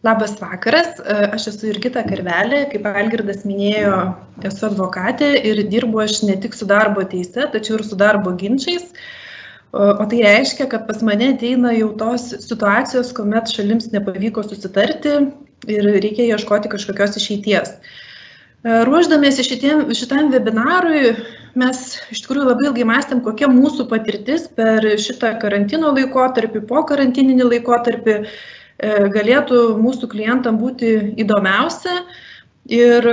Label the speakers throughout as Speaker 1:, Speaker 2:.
Speaker 1: Labas vakaras, aš esu Jurgita Karvelė, kaip Algirdas minėjo, esu advokatė ir dirbu aš ne tik su darbo teise, tačiau ir su darbo ginčiais. O tai reiškia, kad pas mane ateina jau tos situacijos, kuomet šalims nepavyko susitarti ir reikia ieškoti kažkokios išeities. Ruošdamiesi šitam webinarui, mes iš tikrųjų labai ilgai mąstėm, kokia mūsų patirtis per šitą karantino laikotarpį, po karantininį laikotarpį galėtų mūsų klientam būti įdomiausia. Ir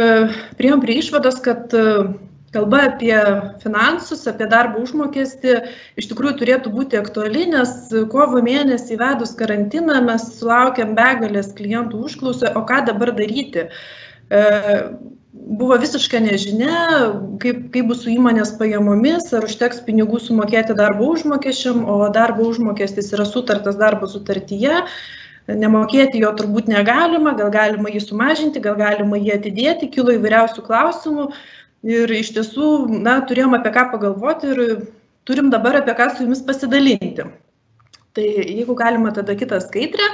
Speaker 1: priėjom prie išvados, kad kalba apie finansus, apie darbo užmokestį iš tikrųjų turėtų būti aktuali, nes kovo mėnesį įvedus karantiną mes sulaukėm begalės klientų užklausų, o ką dabar daryti. Buvo visiška nežinia, kaip bus su įmonės pajamomis, ar užteks pinigų sumokėti darbo užmokesčiam, o darbo užmokestis yra sutartas darbo sutartyje. Nemokėti jo turbūt negalima, gal galima jį sumažinti, gal galima jį atidėti, kilo įvairiausių klausimų ir iš tiesų, turėjom apie ką pagalvoti ir turim dabar apie ką su jumis pasidalinti. Tai jeigu galima, tada kitą skaidrę.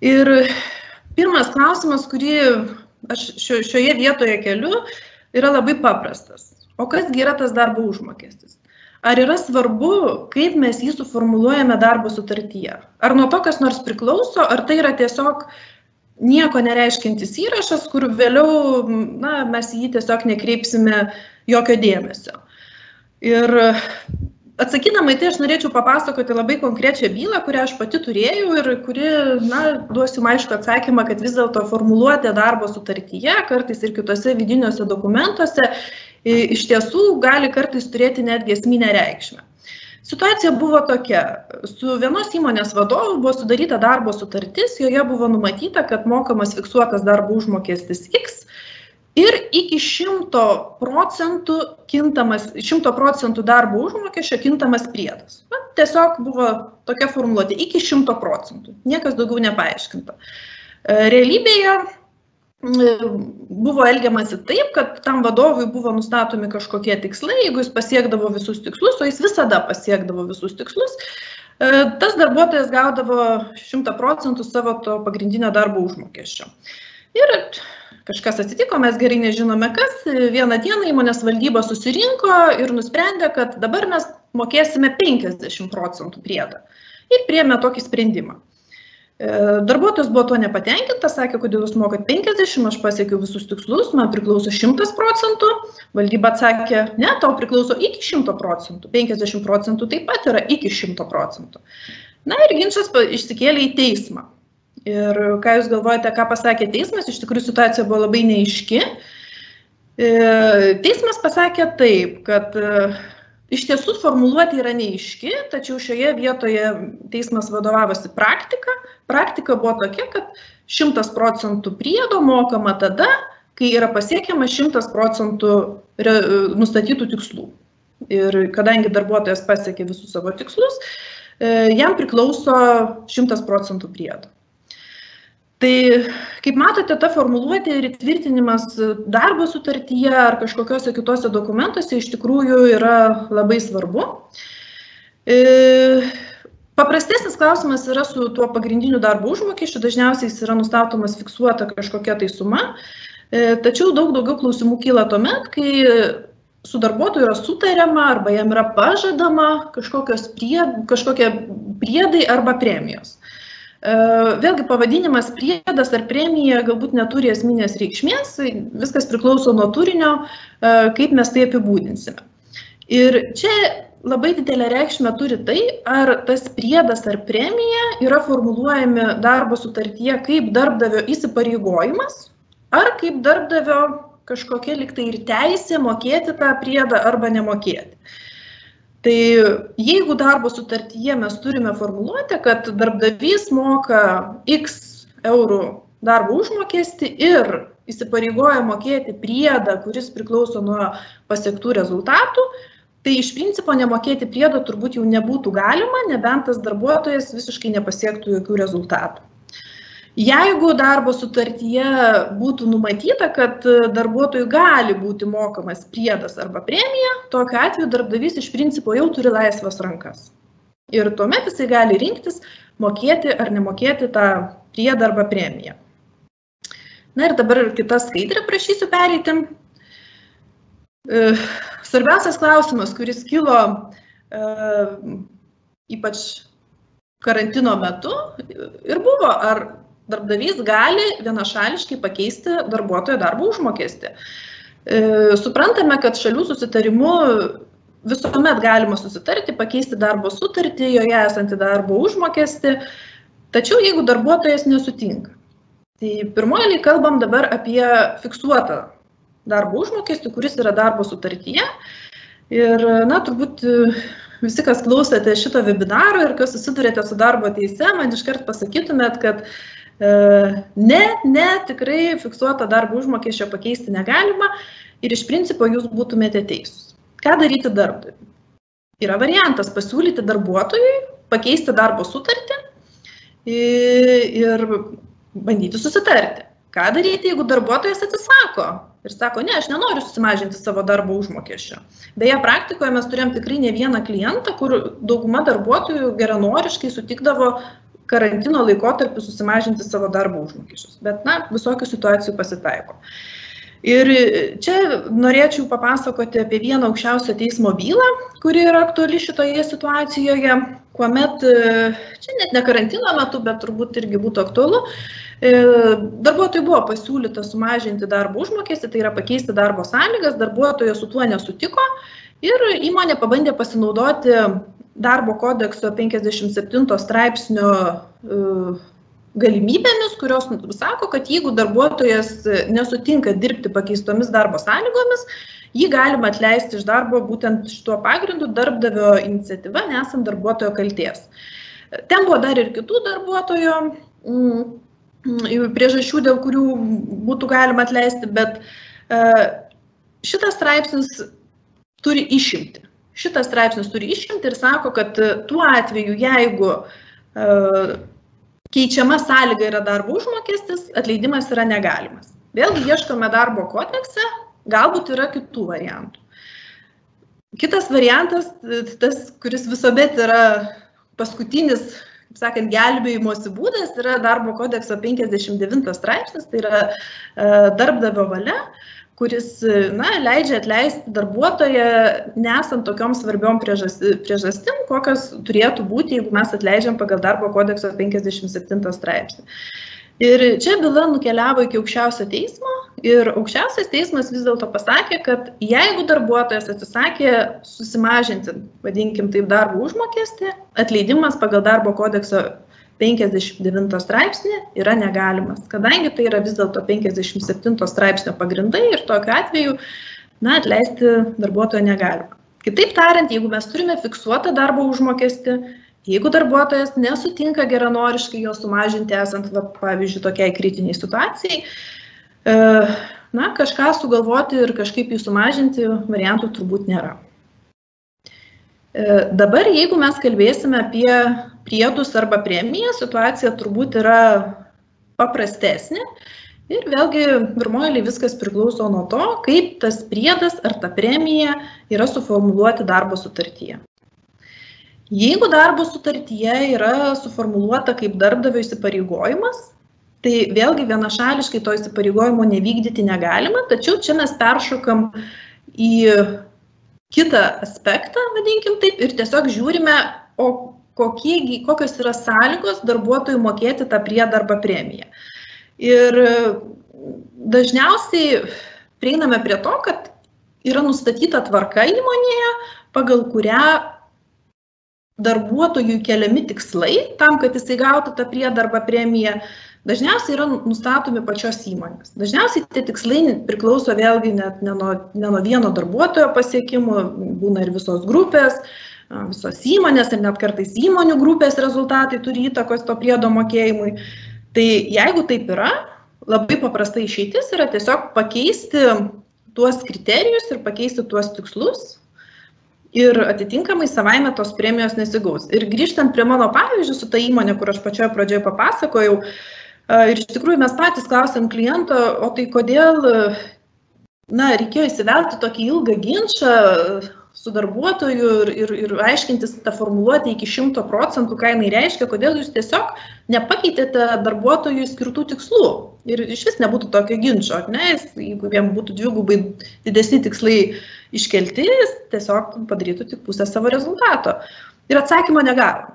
Speaker 1: Ir pirmas klausimas, kurį aš šioje vietoje keliu, yra labai paprastas. O kasgi yra tas darbo užmokestis? Ar yra svarbu, kaip mes jį suformuluojame darbo sutartyje? Ar nuo to kas nors priklauso, ar tai yra tiesiog nieko nereiškiantis įrašas, kur vėliau mes jį tiesiog nekreipsime jokio dėmesio? Ir atsakydama į tai, aš norėčiau papasakoti labai konkrečią bylą, kurią aš pati turėjau ir kuri, duosiu aišku atsakymą, kad vis dėlto formuluotė darbo sutartyje, kartais ir kitose vidiniuose dokumentuose, iš tiesų gali kartais turėti netgi esminę reikšmę. Situacija buvo tokia. Su vienos įmonės vadovu buvo sudaryta darbo sutartis, joje buvo numatyta, kad mokamas fiksuotas darbo užmokestis X ir iki 100% darbo užmokesčio kintamas priedas. Tiesiog buvo tokia formuluotė, iki 100%. Niekas daugiau nepaaiškinta. Realybėje buvo elgiamasi taip, kad tam vadovui buvo nustatomi kažkokie tikslai, jeigu jis pasiekdavo visus tikslus, o jis visada pasiekdavo visus tikslus, tas darbuotojas gaudavo 100% savo to pagrindinio darbo užmokesčio. Ir kažkas atsitiko, mes gerai nežinome kas, vieną dieną įmonės valdyba susirinko ir nusprendė, kad dabar mes mokėsime 50% priedą ir priėmė tokį sprendimą. Darbuotojas buvo tuo nepatenkintas, sakė, kodėl jūs mokat 50, aš pasiekiau visus tikslus, man priklauso 100%, valdyba atsakė, ne, tau priklauso iki 100%, 50% taip pat yra iki 100%. Ir ginčas išsikėlė į teismą. Ir ką jūs galvojate, ką pasakė teismas, iš tikrųjų situacija buvo labai neaiški. Teismas pasakė taip, kad iš tiesų formuluotė yra neaiški, tačiau šioje vietoje teismas vadovavosi praktika. Praktika buvo tokia, kad 100% priedo mokama tada, kai yra pasiekiama 100% nustatytų tikslų. Ir kadangi darbuotojas pasiekė visus savo tikslus, jam priklauso 100% priedo. Tai, kaip matote, ta formuluotė ir įtvirtinimas darbo sutartyje ar kažkokiuose kitose dokumentuose iš tikrųjų yra labai svarbu. Paprastesnis klausimas yra su tuo pagrindiniu darbo užmokesčiu, dažniausiai jis yra nustatomas fiksuota kažkokia tai suma, tačiau daug daugiau klausimų kyla tuomet, kai su darbuotoju yra sutariama arba jam yra pažadama kažkokie priedai arba premijos. Vėlgi pavadinimas priedas ar premija galbūt neturi esminės reikšmės, viskas priklauso nuo turinio, kaip mes tai apibūdinsime. Ir čia labai didelę reikšmę turi tai, ar tas priedas ar premija yra formuluojami darbo sutartyje kaip darbdavio įsipareigojimas, ar kaip darbdavio kažkokia liktai ir teisė mokėti tą priedą arba nemokėti. Tai jeigu darbo sutartyje mes turime formuluotę, kad darbdavys moka X eurų darbo užmokestį ir įsipareigoja mokėti priedą, kuris priklauso nuo pasiektų rezultatų, tai iš principo nemokėti priedo turbūt jau nebūtų galima, nebent tas darbuotojas visiškai nepasiektų jokių rezultatų. Jeigu darbo sutartyje būtų numatyta, kad darbuotojui gali būti mokamas priedas arba premija, tokiu atveju darbdavys iš principo jau turi laisvas rankas. Ir tuomet jisai gali rinktis, mokėti ar nemokėti tą priedą arba premiją. Na ir dabar kitą skaidrę prašysiu pereiti. Svarbiausias klausimas, kuris kilo ypač karantino metu ir buvo, ar darbdavys gali vienašališkai pakeisti darbuotojo darbo užmokestį. Suprantame, kad šalių susitarimu visuomet galima susitarti, pakeisti darbo sutartį, joje esantį darbo užmokestį, tačiau jeigu darbuotojas nesutinka. Tai pirmoji kalbam dabar apie fiksuotą darbo užmokestį, kuris yra darbo sutartyje. Ir, turbūt visi, kas klausėte šito webinaro ir kas susidurėte su darbo teise, man iškart pasakytumėt, kad tikrai fiksuotą darbo užmokesčio pakeisti negalima ir iš principo jūs būtumėte teisūs. Ką daryti darbdaviui? Yra variantas pasiūlyti darbuotojui pakeisti darbo sutartį ir bandyti susitarti. Ką daryti, jeigu darbuotojas atsisako ir sako, ne, aš nenoriu susimažinti savo darbo užmokesčio. Beje, praktikoje mes turėjom tikrai ne vieną klientą, kur dauguma darbuotojų geranoriškai sutikdavo karantino laikotarpiu susimažinti savo darbo užmokesčius. Bet, visokių situacijų pasitaiko. Ir čia norėčiau papasakoti apie vieną aukščiausio teismo bylą, kuri yra aktuali šitoje situacijoje, kuomet, čia net ne karantino metu, bet turbūt irgi būtų aktualu, darbuotojui buvo pasiūlyta sumažinti darbo užmokestį, tai yra pakeisti darbo sąlygas, darbuotojas su tuo nesutiko ir įmonė pabandė pasinaudoti darbo kodekso 57 straipsnio galimybėmis, kurios sako, kad jeigu darbuotojas nesutinka dirbti pakeistomis darbo sąlygomis, jį galima atleisti iš darbo būtent šituo pagrindu darbdavio iniciatyva, nesant darbuotojo kaltės. Ten buvo dar ir kitų darbuotojo priežasčių, dėl kurių būtų galima atleisti, bet šitas straipsnis turi išimti. Šitas straipsnis turi išimti ir sako, kad tuo atveju, jeigu keičiama sąlyga yra darbo užmokestis, atleidimas yra negalimas. Vėlgi ieškome darbo kodekse, galbūt yra kitų variantų. Kitas variantas, tas, kuris visuomet yra paskutinis, kaip sakant, gelbėjimosi būdas, yra darbo kodekso 59 straipsnis, tai yra darbdavio valia, kuris leidžia atleisti darbuotoją nesant tokiom svarbiom priežastim, kokios turėtų būti, jeigu mes atleidžiam pagal darbo kodekso 57 straipsnį. Ir čia byla nukeliavo iki aukščiausio teismo ir aukščiausias teismas vis dėlto pasakė, kad jeigu darbuotojas atsisakė susimažinti, vadinkim taip, darbo užmokestį, atleidimas pagal darbo kodekso 59 straipsnį yra negalimas, kadangi tai yra vis dėlto 57 straipsnio pagrindai ir tokiu atveju atleisti darbuotojo negalima. Kitaip tariant, jeigu mes turime fiksuotą darbo užmokestį, jeigu darbuotojas nesutinka geranoriškai jo sumažinti esant, pavyzdžiui, tokiai kritiniai situacijai, kažką sugalvoti ir kažkaip jį sumažinti variantų turbūt nėra. Dabar, jeigu mes kalbėsime apie priedus arba premiją, situacija turbūt yra paprastesnė ir vėlgi pirmoji viskas priklauso nuo to, kaip tas priedas ar ta premija yra suformuluoti darbo sutartyje. Jeigu darbo sutartyje yra suformuluota kaip darbdavio įsipareigojimas, tai vėlgi vienašališkai to įsipareigojimo nevykdyti negalima, tačiau čia mes peršokam į kitą aspektą, vadinkim taip, ir tiesiog žiūrime, kokios yra sąlygos darbuotojų mokėti tą priedą arba premiją. Ir dažniausiai prieiname prie to, kad yra nustatyta tvarka įmonėje, pagal kurią darbuotojų keliami tikslai, tam, kad jisai gautų tą priedą arba premiją, dažniausiai yra nustatomi pačios įmonės. Dažniausiai tie tikslai priklauso vėlgi net ne nuo vieno darbuotojo pasiekimų, būna ir visos grupės, visos įmonės ir net kartais įmonių grupės rezultatai turi įtakos to priedo mokėjimui. Tai jeigu taip yra, labai paprasta išeitis yra tiesiog pakeisti tuos kriterijus ir pakeisti tuos tikslus ir atitinkamai savaime tos premijos nesigaus. Ir grįžtant prie mano pavyzdžių su ta įmonė, kur aš pačioje pradžioje papasakojau, ir iš tikrųjų mes patys klausėm kliento, o tai kodėl reikėjo įsivelti tokį ilgą ginčą su darbuotoju ir aiškintis tą formuluotę iki 100%, ką jinai reiškia, kodėl jūs tiesiog nepakeitėte darbuotojui skirtų tikslų. Ir iš vis nebūtų tokio ginčo, ne? Jeigu jam būtų dvigubai didesni tikslai iškelti, jis tiesiog padarytų tik pusę savo rezultato. Ir atsakymo negavome.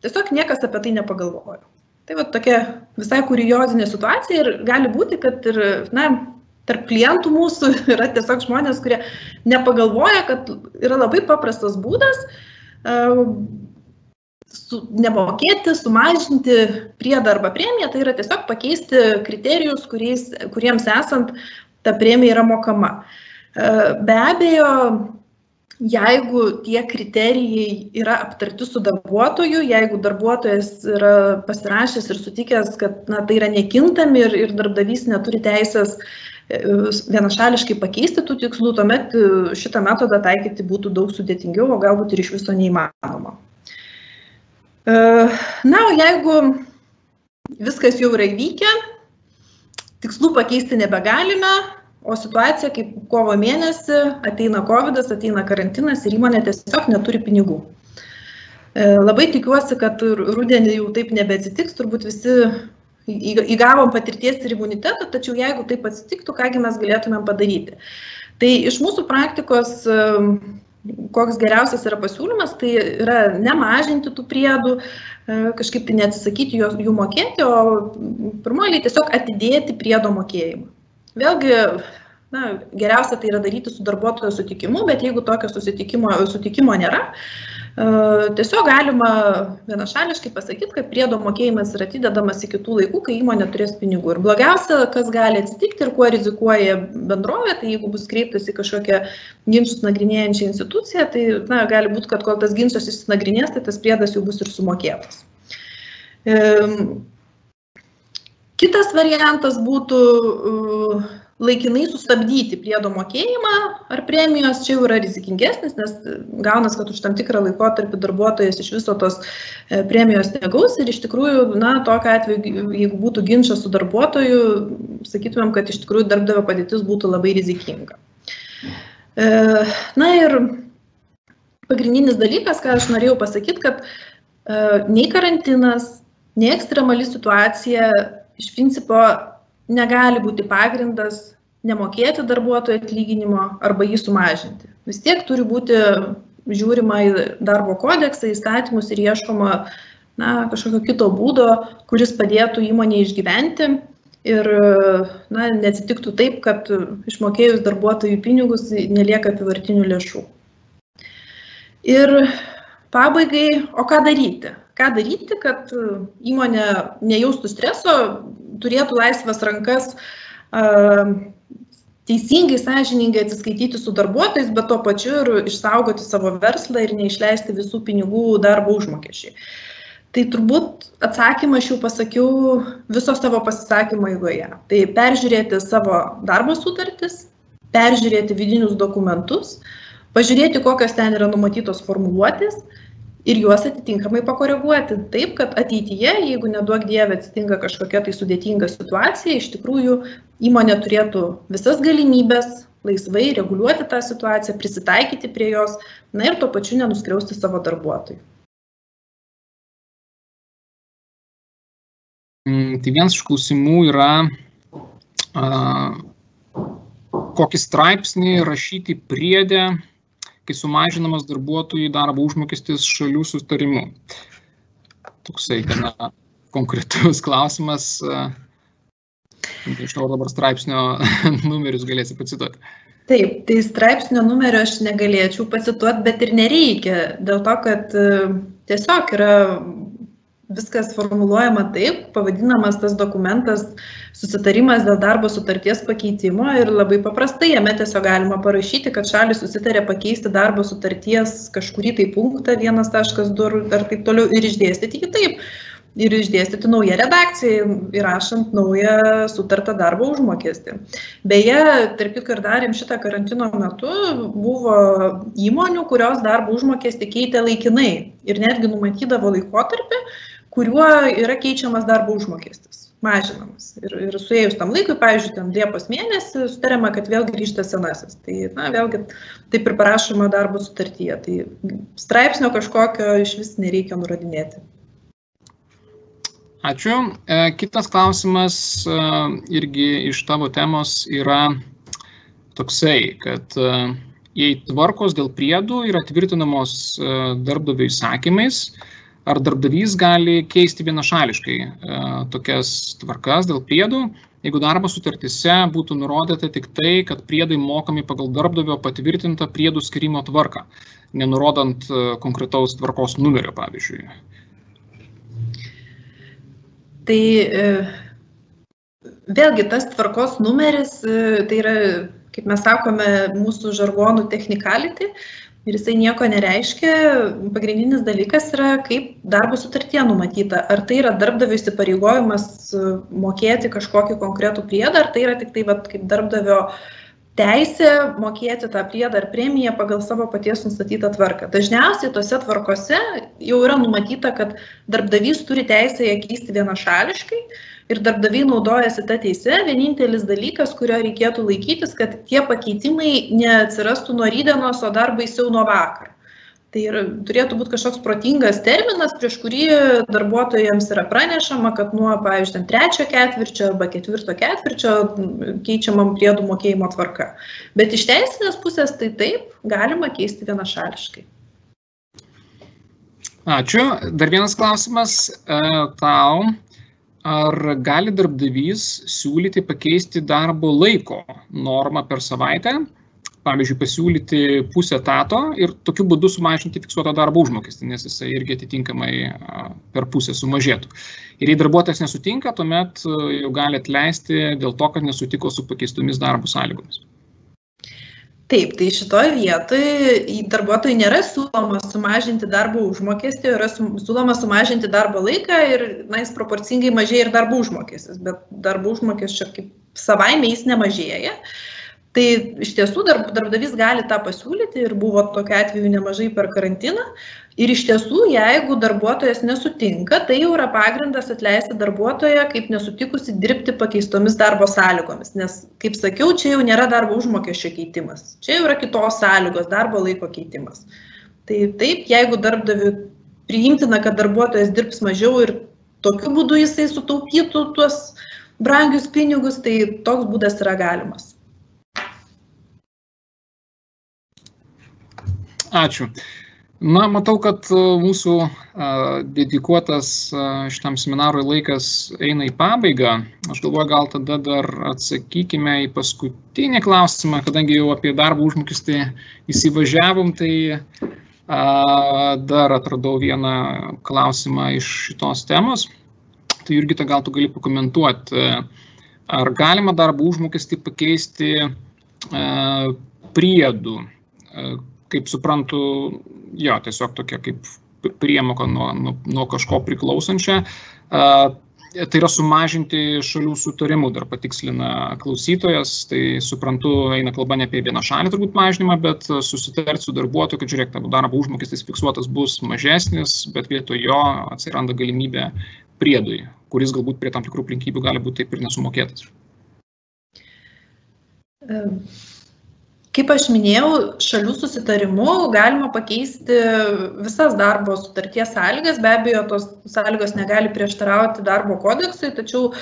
Speaker 1: Tiesiog niekas apie tai nepagalvojo. Tai va tokia visai kuriozinė situacija ir gali būti, kad ir, tarp klientų mūsų yra tiesiog žmonės, kurie nepagalvoja, kad yra labai paprastas būdas nemokėti, sumažinti priedą arba premiją, tai yra tiesiog pakeisti kriterijus, kuriems esant ta premija yra mokama. Be abejo, jeigu tie kriterijai yra aptarti su darbuotoju, jeigu darbuotojas yra pasirašęs ir sutikęs, kad tai yra nekintami ir darbdavys neturi teisės vienašališkai pakeisti tų tikslų, tuomet šitą metodą taikyti būtų daug sudėtingiau, o galbūt ir iš viso neįmanoma. O jeigu viskas jau yra įvykę, tikslų pakeisti nebegalime, o situacija kaip kovo mėnesį ateina COVID, ateina karantinas ir įmonė tiesiog neturi pinigų. Labai tikiuosi, kad rudenį jau taip nebeatsitiks, turbūt visi įgavom patirties ir imunitetą, tačiau jeigu taip atsitiktų, kągi mes galėtumėm padaryti. Tai iš mūsų praktikos, koks geriausias yra pasiūlymas, tai yra nemažinti tų priedų, kažkaip tai neatsisakyti jų mokėti, o pirmoji tiesiog atidėti priedo mokėjimą. Vėlgi, geriausia tai yra daryti su darbuotojo sutikimu, bet jeigu tokio sutikimo nėra, tiesiog galima vienašališkai pasakyti, kad priedo mokėjimas yra atidedamas iki tų laikų, kai įmonė turės pinigų. Ir blogiausia, kas gali atsitikti ir kuo rizikuoja bendrovė, tai jeigu bus kreiptas į kažkokią ginčus nagrinėjančią instituciją, tai gali būti, kad kol tas ginčas išsinagrinės, tai tas priedas jau bus ir sumokėtas. Kitas variantas būtų laikinai sustabdyti priedo mokėjimą ar premijos, čia jau yra rizikingesnis, nes gaunas, kad už tam tikrą laikotarpį darbuotojas iš viso tos premijos negaus ir iš tikrųjų, tokiu atveju, jeigu būtų ginčas su darbuotoju, sakytumėm, kad iš tikrųjų darbdavio padėtis būtų labai rizikinga. Ir pagrindinis dalykas, ką aš norėjau pasakyti, kad nei karantinas, nei ekstremali situacija iš principo negali būti pagrindas nemokėti darbuotojo atlyginimo arba jį sumažinti. Vis tiek turi būti žiūrima į darbo kodeksą, įstatymus ir ieškoma kažkokio kito būdo, kuris padėtų įmonėje išgyventi ir neatsitiktų taip, kad išmokėjus darbuotojų pinigus nelieka apyvartinių lėšų. Ir pabaigai, o ką daryti? Ką daryti, kad įmonė nejaustų streso, turėtų laisvas rankas teisingai, sąžiningai atsiskaityti su darbuotojais, bet tuo pačiu ir išsaugoti savo verslą ir neišleisti visų pinigų darbo užmokesčiai. Tai turbūt atsakymą aš jau pasakiau viso savo pasisakymo eigoje. Tai peržiūrėti savo darbo sutartis, peržiūrėti vidinius dokumentus, pažiūrėti, kokios ten yra numatytos formuluotės, ir juos atitinkamai pakoreguoti taip, kad ateityje, jeigu neduok Dieve atsitinka kažkokia tai sudėtinga situacija, iš tikrųjų įmonė turėtų visas galimybės laisvai reguliuoti tą situaciją, prisitaikyti prie jos, ir tuo pačiu nenuskriausti savo darbuotojų.
Speaker 2: Tai vienas iš klausimų yra, kokį straipsnį rašyti priede, kai sumažinamas darbuotojų darbo užmokestis šalių sutarimu. Toksai gana konkretus klausimas. Nežinau, dabar straipsnio numerius galėsi pacituoti.
Speaker 1: Taip, tai straipsnio numerio aš negalėčiau pacituoti, bet ir nereikia, dėl to, kad tiesiog yra viskas formuluojama taip, pavadinamas tas dokumentas susitarimas dėl darbo sutarties pakeitimo ir labai paprastai jame tiesiog galima parašyti, kad šalys susitarė pakeisti darbo sutarties kažkurį tai punktą 1.2 ar taip toliau ir išdėstyti kitaip. Ir išdėstyti naują redakciją, įrašant naują sutartą darbo užmokestį. Beje, tarp kitko ir darėm šitą karantino metu, buvo įmonių, kurios darbo užmokestį keitė laikinai ir netgi numatydavo laikotarpį, kuriuo yra keičiamas darbo užmokestis. mažinamas. Ir suėjus tam laikui, pavyzdžiui, ten Liepos mėnesį sutariama, kad vėl grįžta senasis. Tai, vėlgi, taip ir parašoma darbo sutartyje. Tai straipsnio kažkokio iš vis nereikia nurodinėti.
Speaker 2: Ačiū. Kitas klausimas irgi iš tavo temos yra toksai, kad jei tvarkos dėl priedų yra tvirtinamos darbdavio įsakymais, ar darbdavys gali keisti vienašališkai tokias tvarkas dėl priedų, jeigu darbo sutartyse būtų nurodyta tik tai, kad priedai mokami pagal darbdavio patvirtintą priedų skyrimo tvarką, nenurodant konkretaus tvarkos numerio, pavyzdžiui.
Speaker 1: Tai vėlgi tas tvarkos numeris, tai yra, kaip mes sakome, mūsų žargonų technicality ir jisai nieko nereiškia. Pagrindinis dalykas yra, kaip darbo sutartyje numatyta. Ar tai yra darbdavio įsipareigojimas mokėti kažkokį konkretų priedą, ar tai yra tik tai kaip darbdavio teisė mokėti tą priedą ar premiją pagal savo paties nustatytą tvarką. Dažniausiai tose tvarkose jau yra numatyta, kad darbdavys turi teisę ją keisti vienašališkai ir darbdaviai naudojasi tą teisę. Vienintelis dalykas, kurio reikėtų laikytis, kad tie pakeitimai neatsirastų nuo rytdienos, o dar baisiau nuo vakar. Tai turėtų būti kažkoks protingas terminas, prieš kurį darbuotojams yra pranešama, kad nuo, pavyzdžiui, 3 ketvirčio arba 4 ketvirčio keičiamam priedų mokėjimo tvarka. Bet iš teisinės pusės tai taip, galima keisti vienašališkai.
Speaker 2: Ačiū. Dar vienas klausimas tau. Ar gali darbdavys siūlyti pakeisti darbo laiko normą per savaitę? Pavyzdžiui, pasiūlyti pusę etato ir tokiu būdu sumažinti fiksuotą darbo užmokestį, nes jisai irgi atitinkamai per pusę sumažėtų. Ir jei darbuotojas nesutinka, tuomet jau gali atleisti dėl to, kad nesutiko su pakeistomis darbo sąlygomis.
Speaker 1: Taip, tai šitoje vietoje darbuotojui nėra siūloma sumažinti darbo užmokestį, yra siūloma sumažinti darbo laiką ir jis proporcingai mažėja ir darbo užmokestis, bet darbo užmokesčio kaip savaime jis nemažėja. Tai iš tiesų darbdavys gali tą pasiūlyti ir buvo tokiu atveju nemažai per karantiną. Ir iš tiesų, jeigu darbuotojas nesutinka, tai jau yra pagrindas atleisti darbuotoją kaip nesutikusi dirbti pakeistomis darbo sąlygomis. Nes, kaip sakiau, čia jau nėra darbo užmokesčio keitimas. Čia jau yra kitos sąlygos, darbo laiko keitimas. Tai taip, jeigu darbdaviui priimtina, kad darbuotojas dirbs mažiau ir tokiu būdu jisai sutaupytų tuos brangius pinigus, tai toks būdas yra galimas.
Speaker 2: Ačiū. Na, matau, kad mūsų dedikuotas šitam seminarui laikas eina į pabaigą. Aš galvoju, gal tada dar atsakykime į paskutinį klausimą, kadangi jau apie darbo užmokestį įsivažiavom, tai dar atradau vieną klausimą iš šitos temos. Tai Jurgita, gal tu gali pakomentuoti, ar galima darbo užmokestį pakeisti priedų? Kaip suprantu, jo, tiesiog tokia kaip priemoka nuo kažko priklausančia. Tai yra sumažinti šalių sutarimų, dar patikslina klausytojas. Tai suprantu, eina kalba ne apie vienašalį turbūt mažinimą, bet susitarti su darbuotoju, kad žiūrėk, tavo darbo užmokestis fiksuotas bus mažesnis, bet vietoj jo atsiranda galimybė priedui, kuris galbūt prie tam tikrų aplinkybių gali būti taip ir nesumokėtas.
Speaker 1: Kaip aš minėjau, šalių susitarimu galima pakeisti visas darbo sutarties sąlygas. Be abejo, tos sąlygos negali prieštarauti darbo kodeksui, tačiau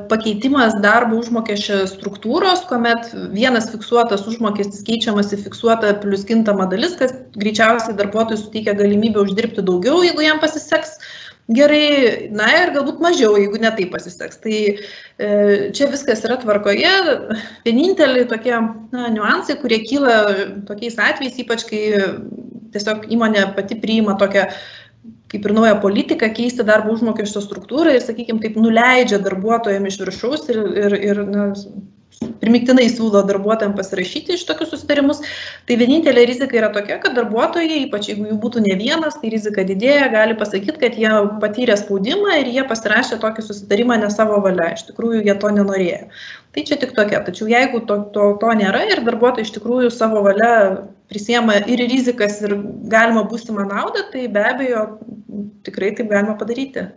Speaker 1: pakeitimas darbo užmokesčio struktūros, kuomet vienas fiksuotas užmokestis keičiamas į fiksuotą plus kintamą dalis, kas greičiausiai darbuotojui suteikia galimybę uždirbti daugiau, jeigu jam pasiseks gerai, na ir galbūt mažiau, jeigu ne taip pasiseks. Tai čia viskas yra tvarkoje. Vieninteliai tokie niuansai, kurie kyla tokiais atvejais, ypač kai tiesiog įmonė pati priima tokią kaip ir naują politiką keisti darbo užmokesčio struktūrą ir, sakykime, taip nuleidžia darbuotojams iš viršaus ir primiktinai siūlo darbuotojams pasirašyti iš tokius susitarimus. Tai vienintelė rizika yra tokia, kad darbuotojai, ypač jeigu jų būtų ne vienas, tai rizika didėja, gali pasakyti, kad jie patyrė spaudimą ir jie pasirašė tokį susitarimą ne savo valia. Iš tikrųjų, jie to nenorėjo. Tai čia tik tokia. Tačiau jeigu to nėra ir darbuotojai iš tikrųjų savo valia prisiema ir rizikas ir galima būsimą naudą, tai be abejo tikrai taip galima padaryti.